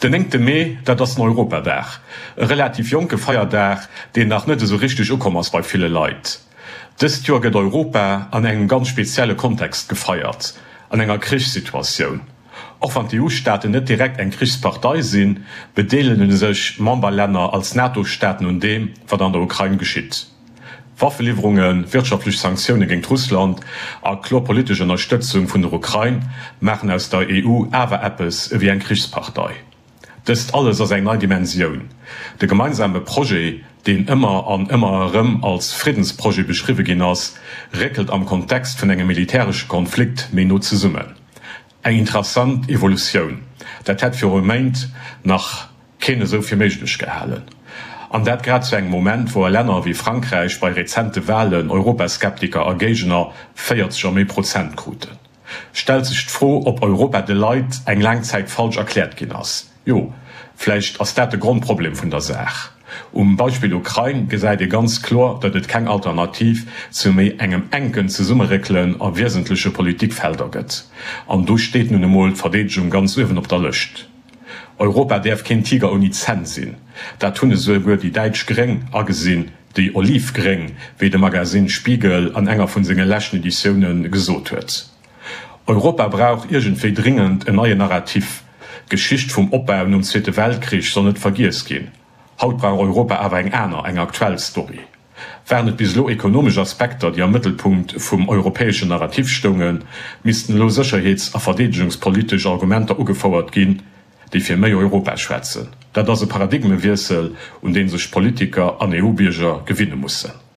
Den néngte Mee, dat ass den Europadag. E relativ jonke Feierdag, deen nach net esou richteg ukomm ass bei ville Leit. Dëst Joer gëtt Europa an engem ganz spezielle Kontext gefeiert, an enger Krichssituatioun. Och wann d'EU-Staaten net direkt eng Krichspartei sinn, bedeelege sech Memberlänner als NATO-Staaten un deem, wat an der Ukrain geschitt. Waffeliwwerungen, wirtschaftlech Sanktioune géingt Russland a kloer politesch Ënnerstëtzung vun der Ukrain maachen aus der EU awer eppes ewéi eng Krichspartei. Dëst alles ass eng nei Dimensioun. De gemeinsame Projet, deen ëmmer an ëmmer erëm als Friddensprojet beschriwwe ginn ass, réckelt am Kontext vun engem militäresche Konflikt méi no zesummen. Eng interessant Evolutioun. Dat hätt viru Méint nach keen esou fir méiglech gehalen. An dat grad zu engem Moment, wou a Länner wéi Frankräich bei rezente Walen Europaskeptiker a Géigner 40 a méi Prozent kruten. Stellt sech d'Fro, ob Europa de Leit eng laang Zäit falsch erkläert ginn ass. Jo, vläicht ass dat de Grondproblem vun der Saach. Um Beispill Ukrain gesäit ee ganz kloer, datt et keng Alternativ zu méi engem enken Zesummeréckelen a wiesentleche Politikfelder gëtt. An do steet nun emol d'Verdeedegung ganz uewen op der Lëscht. Europa däerf keen Tiger ouni Zänn sinn. Dat hunn esouguer déi däitsch Gréng agesinn, déi Olivgréng, wéi de Magazine Spiegel an enger vun senge leschten Editioune gesot huet. Europa brauch iergendwéi dringend en neien Narrativ. D'Geschicht vum Opbau nom Zweete Weltkrich soll net vergiess ginn. Haut brauch Europa awer eng aner, eng aktuell Story. Waren et bis elo ekonomesch Aspekter, déi am Mëttelpunkt vum europäeschen Narrativ stoungen, missten elo sécherheets a verdeedegungspolitesch Argumenter ugefouert ginn, déi fir méi Europa schwätzen. Dat ass e Paradigmewiessel, un dee sech Politiker an EU-Bierger gewinne mussen.